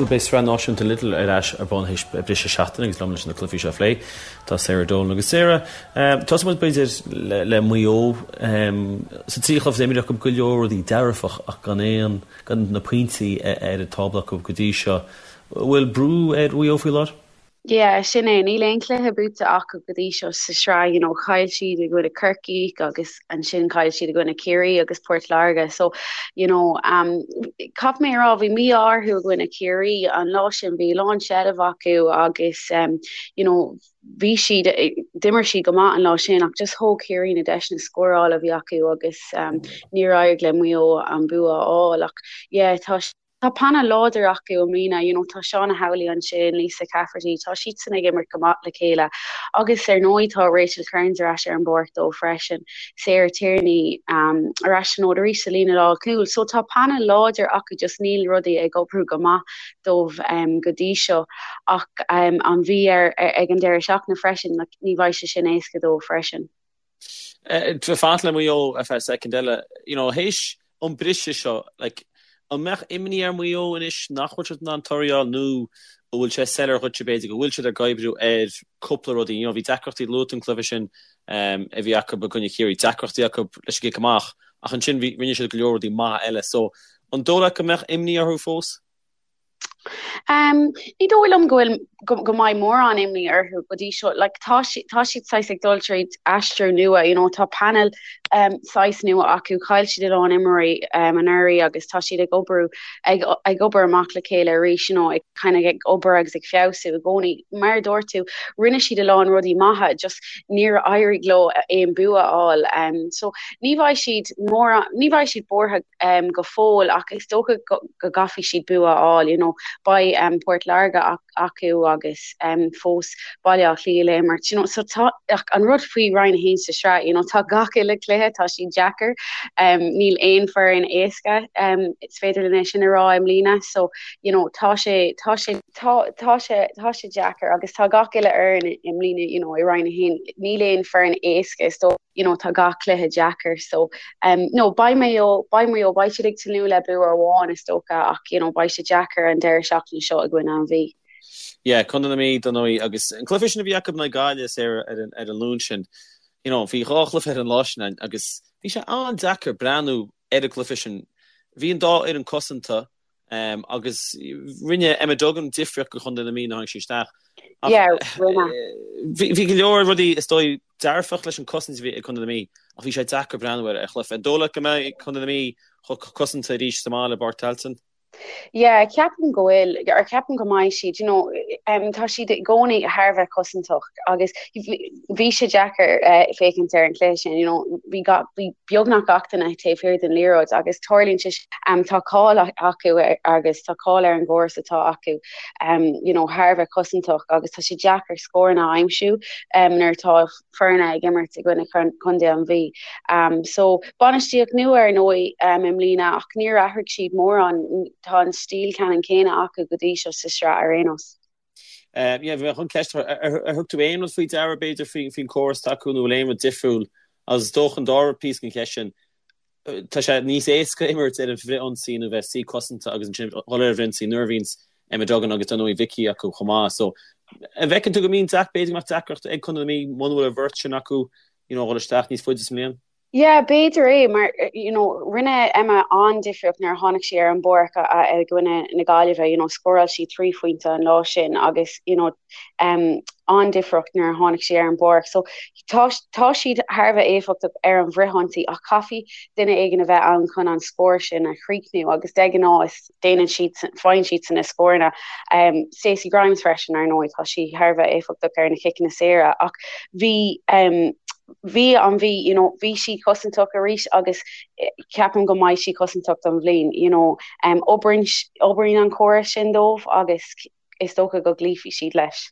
Bhuel, beidh Sraith Náisiúnta Lidl ar ais ar bun théis briseadh seachtaine agus liom leis na cluichí seo a phlé tá Sarah Dolan. Agus Sarah, tosóidh muid b'fhéidir le Maigh Eo. Sa trí chluiche atá imeartha acu go leor rudaí dearfach ach gan aon, gan na pointí ar an tábla acu go dtí seo. Bhfuil brú ar Mhaigh Eo faoi láthair? Yeah, sin é. Níl aon chluiche buaite acu go dtí seo sa sraith, you know, chaill siad i gcoinne Corcaigh agus ansin chaill siad i gcoinne Ciarraí agus Port Láirge. So, you know, um, caithfidh mé a rá, bhí mí-ádh orthu i gcoinne Ciarraí an lá sin, bhí lán seilbh acu agus, um, you know, bhí siad, d'imir siad go maith an lá sin ach just thóg Ciarraí na deiseanna scórála a bhí acu agus um, níor éirigh le Maigh Eo an bua a fháil ach yeah, tá Tá painéal láidir acu i mbliana, you know, tá Shauna Howley ansin, Lisa Cafferty, tá siadsan ag imirt go maith le chéile agus ar ndóigh tá Rachel Kearns ar ais ar an bpáirc dóibh freisin, Sarah Tierney um, ar ais an fhód arís sa líne lánchúil. So tá painéal láidir acu just níl rudaí ag oibriú go maith dóibh um, go dtí seo ach um, an Mhí ar, ar, ag an deireadh seachtaine freisin, like, ní bheidh sé sin éasca dóibh freisin. Fanacht le Maigh Eo ar feadh soicind eile, you know, théis an briseadh seo, like, an mbeadh imní ar Mhaigh Eo anois nach bhfuil siad in ann toradh a fháil nó an bhfuil sé soiléir dhuitse b'fhéidir go bhfuil siad ag oibriú ar cúpla rudaí, you know, bhí deacrachtaí luaite an cluiche sin um, a bhí acu i gcoinne Chiarraí, deacrachtaí acu leis an gcic amach ach ansin bhí, rinne siad go leor rudaí maithe eile, so an dóigh leat go mbeadh imní orthu fós? Ní dóigh liom go bhfuil go mbeidh mórán imní orthu go dtí seo. Like, tá tá siad saghas ag dul tríd aistriú nua, you know, tá painéal um, saghas nua acu, chaill siad a lán imreoirí um, anuraidh agus tá siad ag obair ag, ag obair amach le chéile arís, you know, ag kind of ag obair agus ag feabhsú i gcónaí. Mar a dúirt tú, rinne siad a lán rudaí maithe, just níor éirigh leo aon bua a fháil. Um, so ní bheidh siad mórán, ní bheidh siad buartha um, go fóill ach is dócha go, go gcaithfidh siad bua a fháil, you know, beidh um, Port Láirge acu agus um, fós Baile Átha Cliath le imirt, you know, so tá ach an rud faoi Roinn 1 sa sraith, you know, tá gach uile cluiche, tá siad deacair, um, níl aon foireann éasca, um, is féidir linn é sin a rá i mbliana, so, you know, tá sé, tá sé, tá, tá sé, tá sé deacair agus tá gach uile fhoireann i mbliana, you know, i Roinn 1, níl aon foireann éasca, is dócha. you know, tá gach cluiche deacair so um, no, beidh Maigh Eo, beidh Maigh Eo, beidh siad ag tnúth le bua amháin is dócha ach you know, beidh sé deacair an deireadh seachtaine seo i gcoinne an Mhí. Yeah, Contae na Mí dar ndóigh agus an cluiche sin a bhí acu in aghaidh Gaillimh Sarah ar an, ar an Luan sin, you know, bhí dhá chluiche ar an lá sin agus bhí sé an-deacair breathnú ar an gcluiche sin. Bhí an dá fhoireann cosanta, Agus rinne Emma Duggan difríocht do Chontae na Mí nuair a tháinig sí isteach. Bhí go leor rudaí is dóigh dearfach leis an cosaint a bhí ag Contae na Mí ach bhí sé deacair breathnú ar an chluiche. An dóigh leat go mbeidh Contae na Mí chomh cosanta arís sa mbaile i bPáirc Tailteann? Yeah, ceapaim go bhfuil, or ceapaim go mbeidh siad, you know, tá siad i gcónaí thar a bheith cosantach agus bhí sé deacair féachaint ar an chluiche sin, you know, bhí bhí beagnach gach duine taobh thiar den liathróid agus tarlaíonn sé um, tá cáil acu agus tá cáil ar an gcóras atá acu um, you know, thar a bheith cosantach agus tá sé deacair scóranna a aimsiú um, nuair atá foirne ag imirt i gcoinne Chontae an Mhí. Um, so bainistíocht nua ar ndóigh um, i mbliana ach níor athraigh siad mórán, tá an stíl ceannann céanna acu go dtí seo sa sraith ar aon nós. Yeah, bhí mé chun ceist a chur, ar thug tú aon rud faoi deara b'fhéidir faoin córas atá acu nó bhfuil aon rud difriúil agus is dócha an dara píosa den cheist sin, tá sé níos éasca imirt ar an bhfrith-ionsaí nó bheith suí cosanta agus ansin dhul ar an bhfrith-ionsaí nuair a bhíonns Emma Duggan agus dar ndóigh Vicky acu chomh maith. So an bhfeiceann tú go mbíonn deac, b'fhéidir go mbeadh deacracht ag Contae na Mí muna bhfuil an bheirt sin acu you know dhul isteach níos faide sa mbliain? Yeah, b'fhéidir é, mar you know, rinne Emma an-difríocht nuair a tháinig sí ar an bpáirc i gcoinne na Gaillimhe, you know, scóráil sí 3 phointe an lá sin agus you know, um, an-difríocht nuair a tháinig sí ar an bpáirc. So tá, tá siad thar a bheith éifeachtach ar an bhfrithionsaí ach caithfidh duine éigin a bheith ann chun an scór sin a chríochnú agus de ghnáth is déanann siad, faigheann siadsan na scóranna. Um, Stacey Grimes freisin, ar ndóigh, tá sí thar a bheith éifeachtach ar na ciceanna saora ach bhí um, bhí an Mhí, you know, bhí sí cosantach arís agus eh, ceapaim go mbeidh sí cosantach don bhliain, you know, um, oibríonn, oibríonn an córas sin dóibh agus is dócha go gcloífidh siad leis.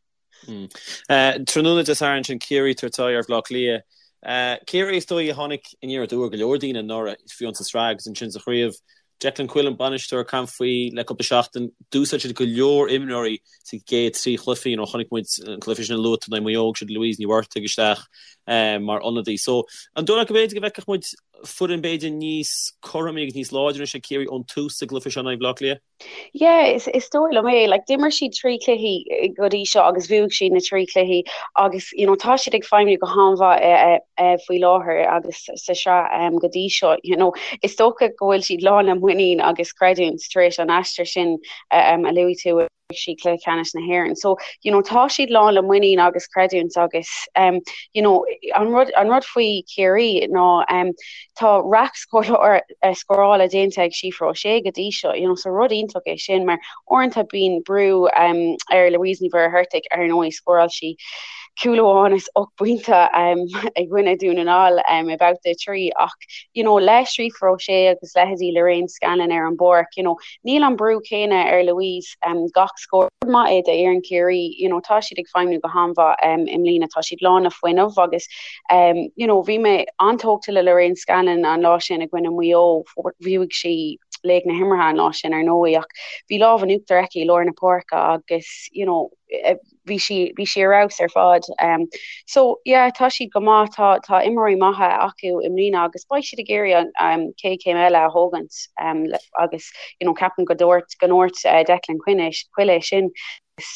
Tráthnóna Dé Sathairn sin Ciarraí ag tabhairt aghaidh ar Bhaile Átha Cliath. Ciarraí is dóigh a tháinig aniar aduaidh ar go leor daoine anuraidh, fiú sa tsraith agus ansin sa chraobh. Declan Quillen an bainisteoir ag caint faoi le cúpla seachtain. D'úsáid siad go leor imreoirí sa gcéad trí chluiche. You know, chonaic muid an cluiche sin a luaigh tú in aghaidh Maigh Eo, thug siad Louise Ní Mhurtaigh isteach mar ionadaí. So, an dóigh leat go mb'fhéidir go bhfeicfeadh muid. foireann b'fhéidir níos cothromaí agus níos láidre anois ag Ciarraí ón tús sa gcluiche seo in aghaidh Bhaile Átha Cliath? Yeah, is is dóigh liom é. Like, d'imir siad trí chluichí go dtí seo agus bhuaigh siad na trí chluichí agus you know, tá siad ag feidhmiú go han-mhaith eh, eh, faoi láthair agus sa sraith um, go dtí seo. You know, is dócha go bhfuil siad lán le muinín agus creidiúint tar éis an aistir sin um, a luaigh tú siad cluiche ceannais na hÉireann. So, you know, tá siad lán le muinín agus creidiúint agus um, you know, an rud, an rud faoi Chiarraí ná um, tá raic eh, scórála déanta ag Síofra O'Shea go dtí seo, you know, so rud iontach é sin mar uaireanta bíonn brú um, ar Louise Ní Mhuircheartaigh ar ndóigh scóráil sí cúl amháin is 8 bpointe um, i gcoinne Dún na nGall um, i babhta 3 ach you know, le Síofra O'Shea agus leithéidí Lorraine Scanlon ar an bpáirc, you know, Níl an brú céanna ar Louise gach scór. Rud maith é d'fhoireann Chiarraí, you know, tá siad ag feidhmiú go han-mhaith i mbliana, tá siad lán le fuinneamh agus you know, bhí mé an-tógtha le Lorraine Scanlon an lá sin i gcoinne Mhaigh Eo, bhuaigh sí laoch na himeartha an lá sin ar ndóigh ach bhí lámh in uachtar aici i lár na páirce agus you know, bhí sí bhí sí ar fheabhas ar fad. Um, so yeah, tá siad go maith, tá tá imreoirí maithe acu i mbliana agus beidh siad ag iarraidh an um, chéad chéim eile a thógaint um, agus you know, ceapaim go dúirt go ndúirt uh, Declan Quinn é, Quill é sin.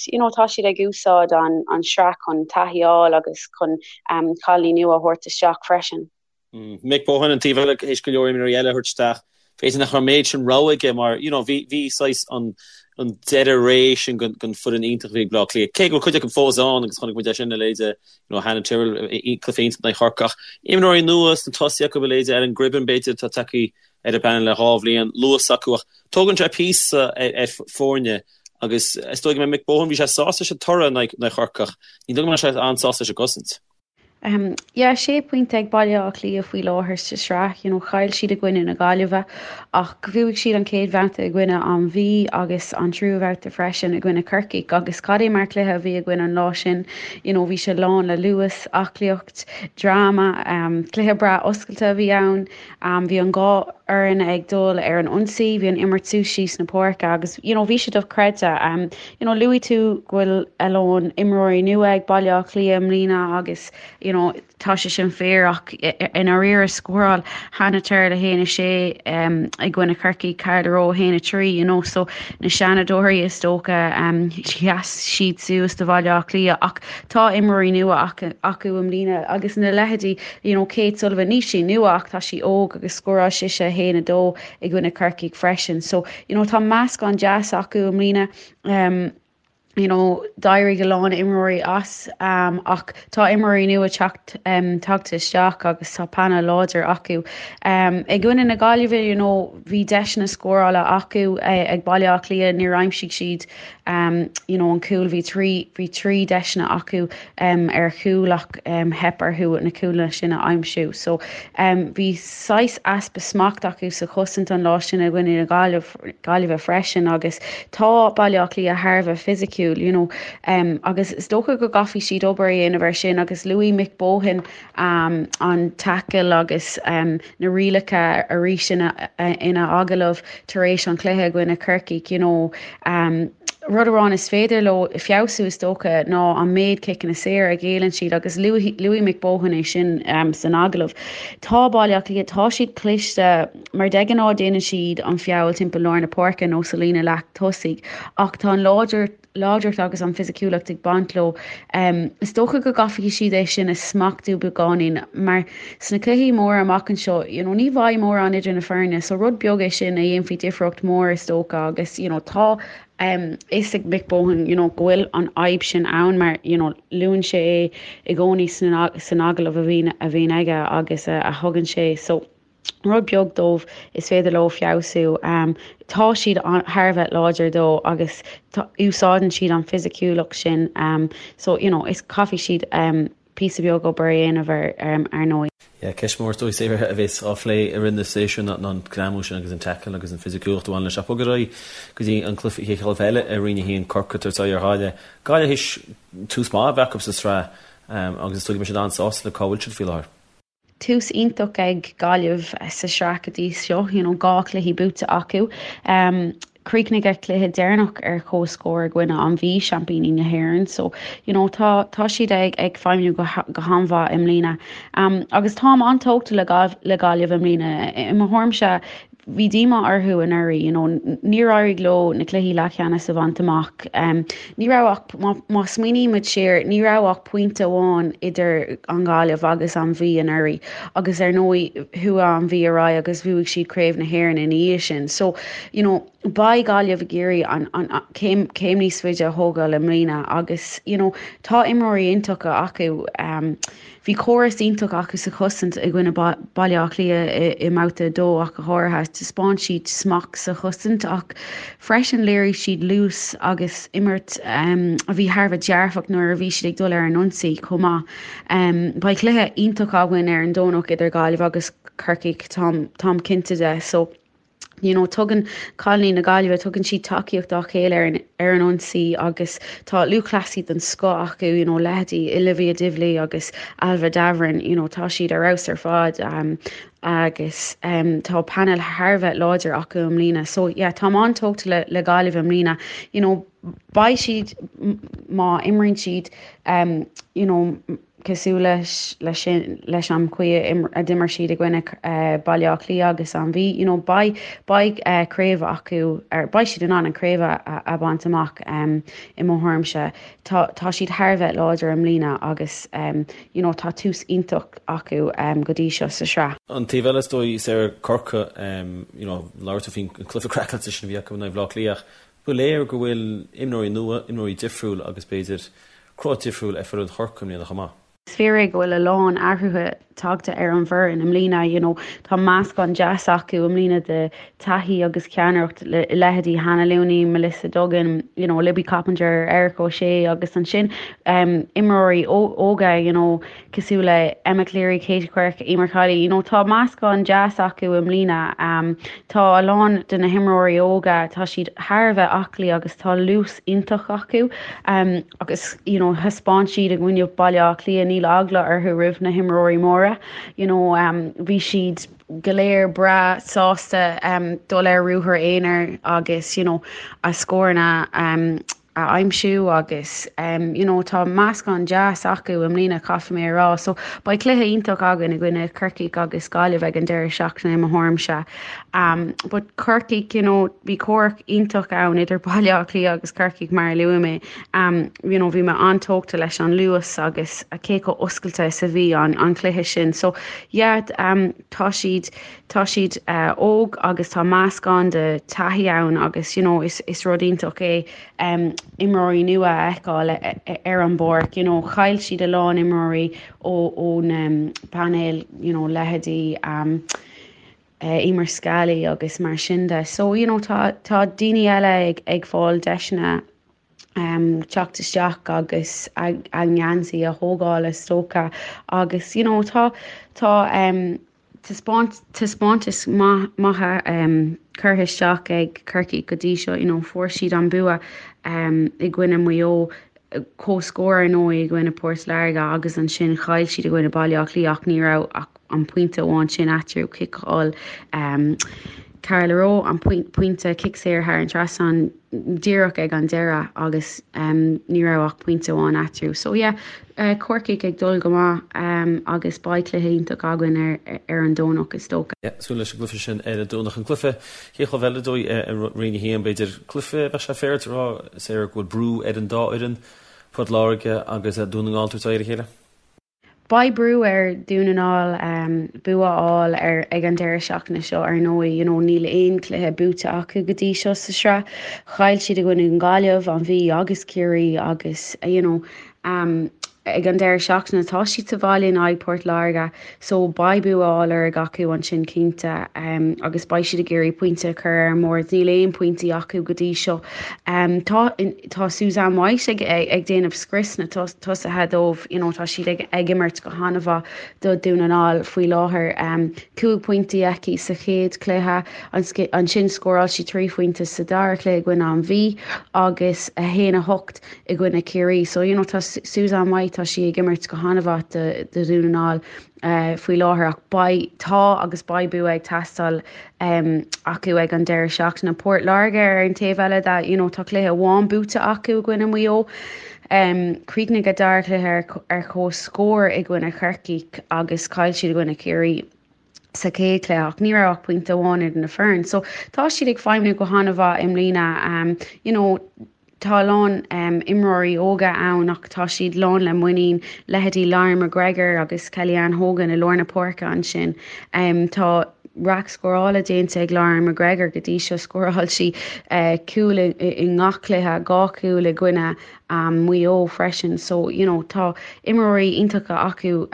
You know, tá siad ag úsáid an, an sraith chun taithí a fháil agus chun um, cailíní nua a thabhairt isteach freisin. Mick Bohan an taobh eile théis go leor imreoirí eile a thabhairt isteach. B'fhéidir nach raibh an méid sin rogha aige mar you know bhí bhí saghas an an deireadh ré sin den den foireann iontach a bhí ag Bleá Cliath. Cé go bhfuil cuid acu fós ann agus chonaic muid é sin a leithéide you know Hannah Tyrrell cluiche iontach in aghaidh Chorcaí ach imreoirí nua sna tosaithe acu a leithéide Ellen Gribben b'fhéidir atá tagtha ar an bpainéal le dhá bhliain luas acu ach tógann sé píosa ar ar foirne agus is dóigh go mbeidh Mick Bohan bhí sé sásta leis an toradh in aghaidh Chorcaí ach ní dóigh go mbeidh sé an-sásta leis an gcosaint. Yeah, sé pointe ag Baile Átha Cliath faoi láthair sa sraith. You know, chaill siad i gcoinne na Gaillimhe ach bhuaigh siad an chéad bhabhta i gcoinne an Mhí agus an tríú bhabhta freisin i gcoinne Corcaigh agus cad é mar chluiche a bhí againn an lá sin. You know, bhí sé lán le luas, aclaíocht, dráma, cluiche breá oscailte a bhí ann. Bhí an dhá fhoireann ag dul ar an ionsaí, bhí an imirt suas síos na páirce agus you know bhí sé dochreidte. You know luaigh tú go bhfuil a lán imreoirí nua ag Baile Átha Cliath i mbliana agus you know tá sé sin fíor ach i ndáiríre scóráil Hannah Tyrrell 1-6 i gcoinne Chorcaí, Carla Rowe 1-3 you know so na seanadóirí is dócha sheas siad suas do Bhaile Átha Cliath ach tá imreoirí nua acu i mbliana agus na leithéidí you know Kate Sullivan, níl sí nua ach tá sí óg agus scóráil sise 1-2 i gcoinne Corcaigh freisin. So, you know, tá meascán deas acu i mbliana. Um, you know, d'éirigh a lán imreoirí as um, ach tá imreoirí nua teacht um, tagtha isteach agus tá painéal láidir acu. Um, I gcoinne na Gaillimhe, you know, bhí deiseanna scórála acu eh, ag Baile Átha Cliath, níor aimsigh siad um, you know, an cúl bhí trí bhí trí deiseanna acu um, ar chúl ach um, theip orthu na cúlanna sin a aimsiú. So um, bhí saghas easpa smacht acu sa chosaint an lá sin i gcoinne na Gaillimhe freisin agus tá Baile Átha Cliath thar a bheith fisiciúil you know, um, agus is dócha go gcaithfidh siad obair a dhéanamh ar sin agus luaigh Mick Bohan um, an tackle agus um, na rialacha arís ina, ina agallamh tar éis an chluiche i gcoinne Corcaigh, you know, um, rud amháin is féidir leo feabhsú is dócha ná an méid ciceanna saora a ghéilleann siad agus luaigh Mick Bohan é sin um, san agallamh. Tá Baile Átha Cliath, tá siad cliste mar de ghnáth déanann siad an feall timpeall lár na páirce nó sa líne leath tosaigh ach tá an láidir láidreacht agus an fisiciúlacht ag baint leo. Is dócha go gcaithfidh siad é sin a smachtú beagáinín mar sna cluichí móra amach anseo, you know, ní bheidh mórán idir na foirne so rud beag é sin a dhéanfaidh difríocht mhór is dócha agus you know, tá a fhios ag Mick Bohan you know, go bhfuil an fhadhb sin ann mar you know, luann sé é i gcónaí san agallamh a bhíonn a bhíonn aige agus a, a thugann sé so rud beag dóibh is féidir leo feabhsú. Tá siad thar a bheith láidir dó agus úsáideann siad an fisiciúlacht sin so you know is caithfidh siad píosa beag obair a dhéanamh air ar ndóigh. Yeah, ceist mhór is dóigh Sarah a bheas á phlé i rith na séasúir ná an greamú sin agus an tackle agus an fisiciúlacht a bhaineann leis. Ach bog ar aghaidh go dtí an cluiche chéad chluiche eile i Roinn 1 Corcaigh ag tabhairt aghaidh ar Ghaillimh. Gaillimh théis tús maith a bheith acu sa tsraith agus is dóigh go mbeidh siad an-sásta le cá bhfuil siad faoi láthair. Tús iontach ag Gaillimh sa sraith go dtí seo, you know, 2 chluiche buaite acu. Chríochnaigh a cluiche deireanach ar comhscór i gcoinne an Mhí, seaimpíní na hÉireann. So, you know, tá, tá siad ag, ag feidhmiú go, go han-mhaith i mbliana. Um, agus táim an-tógtha le, le Gaillimh i mbliana. I mo thuairimse, bhí díomá orthu anuraidh, you know, níor éirigh leo na cluichí leathcheannais a bhaint amach. Um, ní raibh ach, má, má smaoinímid siar, ní raibh ach pointe amháin idir an Ghaillimh agus an Mhí anuraidh agus ar ndóigh chuaigh an Mhí ar aghaidh agus bhuaigh siad Craobh na hÉireann ina dhiaidh sin. So, you know, beidh Gaillimh ag iarraidh an, an, an céim, céim níos faide a thógáil i mbliana agus, you know, tá imreoirí iontacha acu. Um, bhí córas iontach acu sa chosaint i gcoinne Baile Átha Cliath i, i mbabhta 2 ach go háirithe. Taispeáin siad smacht sa chosaint ach freisin léirigh siad luas agus imirt um, a bhí thar a bheith dearfach nuair a bhí siad ag dul ar an ionsaí chomh maith. Um, beidh cluiche iontach againn ar an Domhnach idir Gaillimh agus Corcaigh, táim, táim cinnte de. So, you know, tugann cailíní na Gaillimhe, tugann siad tacaíocht dá chéile ar an, ar an ionsaí agus tá lúthchleasaí den scoth acu, you know, leithéidí Olivia Divilly agus Ailbhe Davoren, you know, tá siad ar fheabhas ar fad um, agus um, tá painéal thar a bheith láidir acu i mbliana. So yeah, táim an-tógtha le, le Gaillimh i mbliana. You know, beidh siad má imríonn siad um, you know, cosúil leis leis sin leis an chaoi a d'imir siad i gcoinne Baile Átha Cliath agus an Mhí you know beidh beidh craobh acu ar beidh siad in ann an craobh a a bhaint amach um, i mo thuairimse tá tá siad thar a bheith láidir i mbliana agus um, you know tá tús iontach acu um, go dtí seo sa sraith. An taobh eile is dóigh Sarah Corcaigh um, you know labhair tú faoin cluiche craiceáilte sin a bhí acu in aghaidh Bhaile Átha Cliath ach ba léir go bhfuil imreoirí nua, imreoirí difriúil agus b'fhéidir cruth difriúil ar foireann Chorcaí i mbliana chomh maith. Is fíor é go bhfuil a lán athruithe tagtha ar an bhfoireann i mbliana. You know, tá meascán deas acu i mbliana de taithí agus ceannaireacht le leithéidí Hannah Looney, Melissa Duggan, you know, Libby Coppinger, Erica O'Shea agus ansin um, imreoirí óga, you know, cosúil le Emma Cleary, Katie Quirke, Emer Kiely, you know, tá meascán deas acu i mbliana. Um, tá a lán de na himreoirí óga, tá siad thar a bheith aclaí agus tá luas iontach acu. Um, agus you know, thaispeáin siad i gcoinne Baile Átha Cliath, níl eagla orthu roimh na himreoirí móra. You know, um, bhí siad go léir breá sásta um, dul ar ruathar aonair agus you know, a scóranna um, a aimsiú agus you know tá meascán deas acu i mbliana caithfidh mé a rá. So beidh cluiche iontach againn i gcoinne Corcaigh agus Gaillimh ag an deireadh seachtaine i mo thuairimse. Um, but Corcaigh you know bhí comhrac iontach ann idir Baile Átha Cliath agus Corcaigh mar a luaigh mé. Um, you know bhí mé an-tógtha leis an luas agus cé chomh oscailte is a bhí an, an cluiche sin. So yeah, um, tá siad tá siad uh, óg agus tá meascán de taithí ann agus you know, is, is rud iontach é um, imreoirí nua a fheiceáil ar an bpáirc. You know, chaill siad a lán imreoirí ón um, bpainéal you know, leithéidí um, uh, Emer Scally agus mar sin de. So you know, tá, tá daoine eile ag, ag fáil deiseanna um, teacht isteach agus a, a ngeansaí a thógáil is dócha agus you know, tá, tá um, taispeántais maithe curtha isteach ag Corcaigh go dtí seo. You know, fuair siad an bua i gcoinne Mhaigh Eo, comhscór ar ndóigh i gcoinne Port Láirge agus ansin chaill siad i gcoinne Baile Átha Cliath ach ní raibh ach an pointe amháin sin eatarthu, chiceáil Carla Rowe an pointe cic saor thar an trasnán. díreach ag an deireadh agus ní raibh ach pointe amháin eatarthu. So yeah, Corcaigh ag dul go maith agus beidh cluiche iontach againn ar ar an Domhnach is dócha. Yeah, súil leis an gcluiche sin ar an Domhnach. An cluiche, chéad chluiche eile dóigh i Roinn 1, b'fhéidir cluiche, bheadh sé féaráilte a rá, Sarah, go bhfuil brú ar an dá fhoireann, Port Láirge agus Dún na nGall tabhairt aghaidh ar a chéile? Beidh brú ar Dhún na nGall bua a fháil ar ag an deireadh seachtaine seo ar ndóigh. You know níl aon chluiche buaite acu go dtí seo sa sraith. Chaill siad i gcoinne an Ghaillimh, an Mhí agus Ciarraí agus you know ag an deireadh seachtaine tá siad sa bhaile in aghaidh Port Láirge so beidh bua á lorg acu ansin cinnte agus beidh siad ag iarraidh pointe a chur ar an mbord. Níl aon pointí acu go dtí seo. Tá Tá Suzanne White ag ag déanamh scrios na tosaithe dóibh, you know, tá siad ag ag imirt go han-mhaith do Dhún na nGall faoi láthair. 5 pointí aici sa chéad chluiche, ansin scóráil sí 3 phointe sa dara cluiche i gcoinne an Mhí agus 1 8 i gcoinne Ciarraí. So you know, tá Suzanne White. Tá sí ag imirt go han-mhaith do Dhún na nGall faoi láthair ach beidh, tá agus beidh bua ag teastáil acu ag an deireadh seachtaine. Port Láirge ar an taobh eile de, you know, tá cluiche amháin buaite acu i gcoinne Mhaigh Eo. Chríochnaigh a dara cluiche ar comhscór i gcoinne Chorcaí agus chaill siad i gcoinne Chiarraí sa chéad chluiche ach ní raibh ach pointe amháin idir na foirne. So tá siad ag feidhmiú go han-mhaith i mbliana. You know, tá a lán imreoirí óga ann ach tá siad lán le muinín, leithéidí Lauren McGregor agus Kellyann Hogan i lár na páirce ansin. Tá raic scórála déanta ag Lauren McGregor go dtí seo, scóráil sí cúl i ngach cluiche, 2 chúl i gcoinne Mhaigh Eo freisin so you know tá imreoirí iontacha acu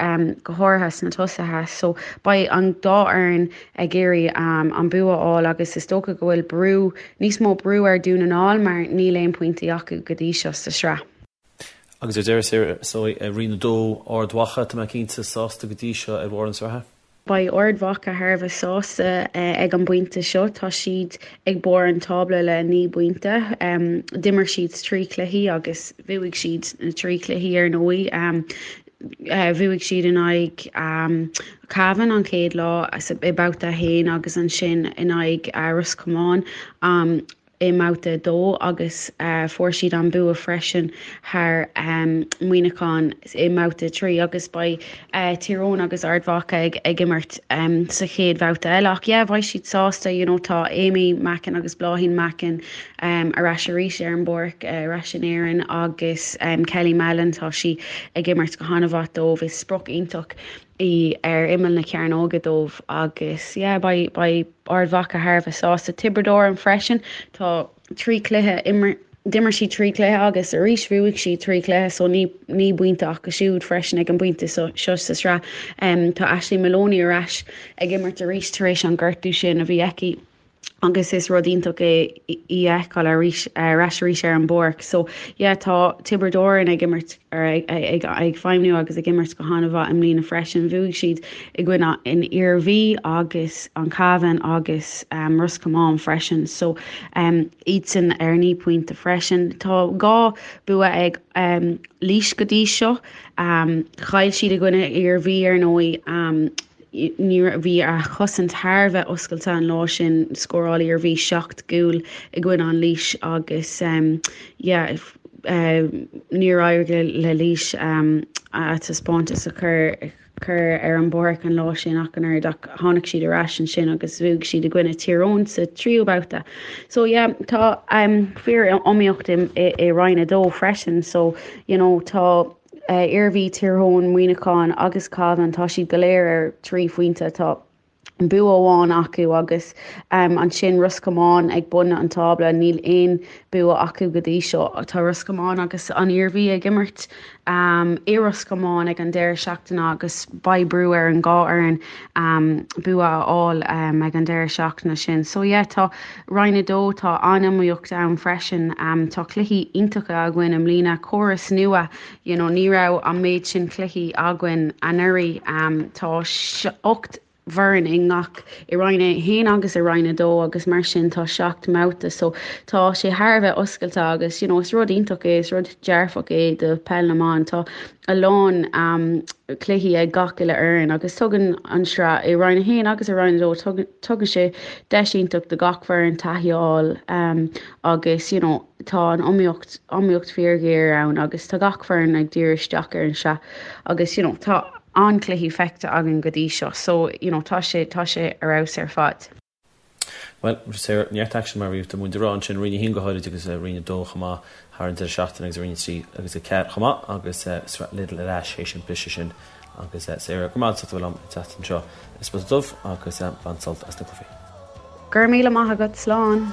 go háirithe sna tosaithe so beidh an dá fhoireann ag iarraidh an bua a fháil agus is dócha go bhfuil brú, níos mó brú ar Dhún na nGall mar níl aon pointí acu go dtí seo sa sraith. Agus ar deireadh, Sarah, so i Roinn 2, Ard Mhacha, tá mé cinnte, sásta go dtí seo ar bharr na sraithe? Beidh Ard Mhacha thar a bheith sásta ag an bpointe seo. Tá siad ag barr an tábla le 9 bpointe. D'imir siad 3 chluichí agus bhuaigh siad na 3 chluichí ar ndóigh. Bhuaigh siad in aghaidh Cavan an chéad lá i mbabhta 1 agus ansin in aghaidh Ros Comáin. i mbabhta 2 agus fuair siad an bua freisin thar Muineachán i mbabhta 3 agus beidh Tír Eoghain agus Ard Mhacha ag imirt sa chéad bhabhta eile. Ach yeah, beidh siad sásta, you know, tá Amy Mackin agus Bláithín Mackin ar ais arís ar an bpáirc, ar ais in Éirinn agus Kelly Mallon, tá sí ag imirt go han-mhaith dóibh, is sprioc iontach í ar imeall na cearnóige dóibh agus yeah, beidh, beidh Ard Mhacha thar a bheith sásta. Tiobraid Árann freisin, tá 3 chluiche, d'imir siad 3 chluiche agus arís bhuaigh siad 3 chluiche so 9 bpointe acu siúd freisin ag an bpointe seo sa sraith. Tá Ashley Maloney ar ais ag imirt arís tar éis an gortú sin a bhí aici. agus is rud iontach é í a fheiceáil arís ar ais arís ar an bpáirc. So yeah tá Tiobraid Árann ag imirt ag ag ag feidhmniú agus ag imirt go han-mhaith i mbliana freisin. Bhuaigh siad i gcoinne an Iarmhí agus an Cabhán agus um, Ros Comáin freisin. So um, iadsan ar 9 pointe freisin. Tá 2 bua ag um, Laois go dtí seo. Um, chaill siad i gcoinne Iarmhí ar ndóigh. Um, Ní raibh, bhí a chosaint thar a bheith oscailte an lá sin, scóráil Iarmhí 7 gcúl i gcoinne an Laois agus yeah níor éirigh le Laois a taispeántas a chur chur ar an bpáirc an lá sin ach an oiread ach tháinig siad ar ais ansin agus bhuaigh siad i gcoinne Tír Eoghain sa tríú babhta. So yeah tá fíor iomaíocht i i Roinn 2 freisin so you know tá Iarmhí, Tír Eoghain, Muineachán agus Cabhán, tá siad go léir ar 3 phointe. Tá bua amháin acu agus ansin Ros Comáin ag bun an tábla, níl aon bua acu go dtí seo. Tá Ros Comáin agus an Iarmhí ag imirt i Ros Comáin ag an deireadh seachtaine agus beidh brú ar an dhá fhoireann bua a fháil ag an deireadh seachtaine sin. So yeah, tá Roinn 2, tá an-iomaíocht ann freisin. Tá cluichí iontacha againn i mbliana, córas nua, you know, ní raibh an méid sin cluichí againn anuraidh. Tá 8 bhfoireann i ngach, i Roinn 1 agus i Roinn 2 agus mar sin tá 7 mbabhta so tá sé thar a bheith oscailte agus you know, is rud iontach é, is rud dearfach é do peil na mban. Tá a lán cluichí ag gach uile fhoireann agus tugann an sraith i Roinn 1 agus i Roinn 2 tugann sé deis iontach do gach foireann taithí a fháil agus you know tá an iomaíocht iomaíocht fíorghéar ann agus tá gach foireann ag díriú isteach ar an sraith agus you know tá an-chluichí feicthe againn go dtí seo so you know tá sé tá sé ar fheabhas ar fad. Bhuel, Sarah, neart aicsean mar a bhí muid ag rá ansin, Roinn 1 go háirid agus Roinn 2 chomh maith thar an deireadh seachtaine agus Roinn 3 agus 4 chomh maith agus Sraith Lidl ar ais théis an briseadh sin agus Sarah, go raibh maith agat as ucht a bheith liom an tseachtain seo i Spota Dubh agus bain sult as na cluichí. Go raibh míle maith agat, slán!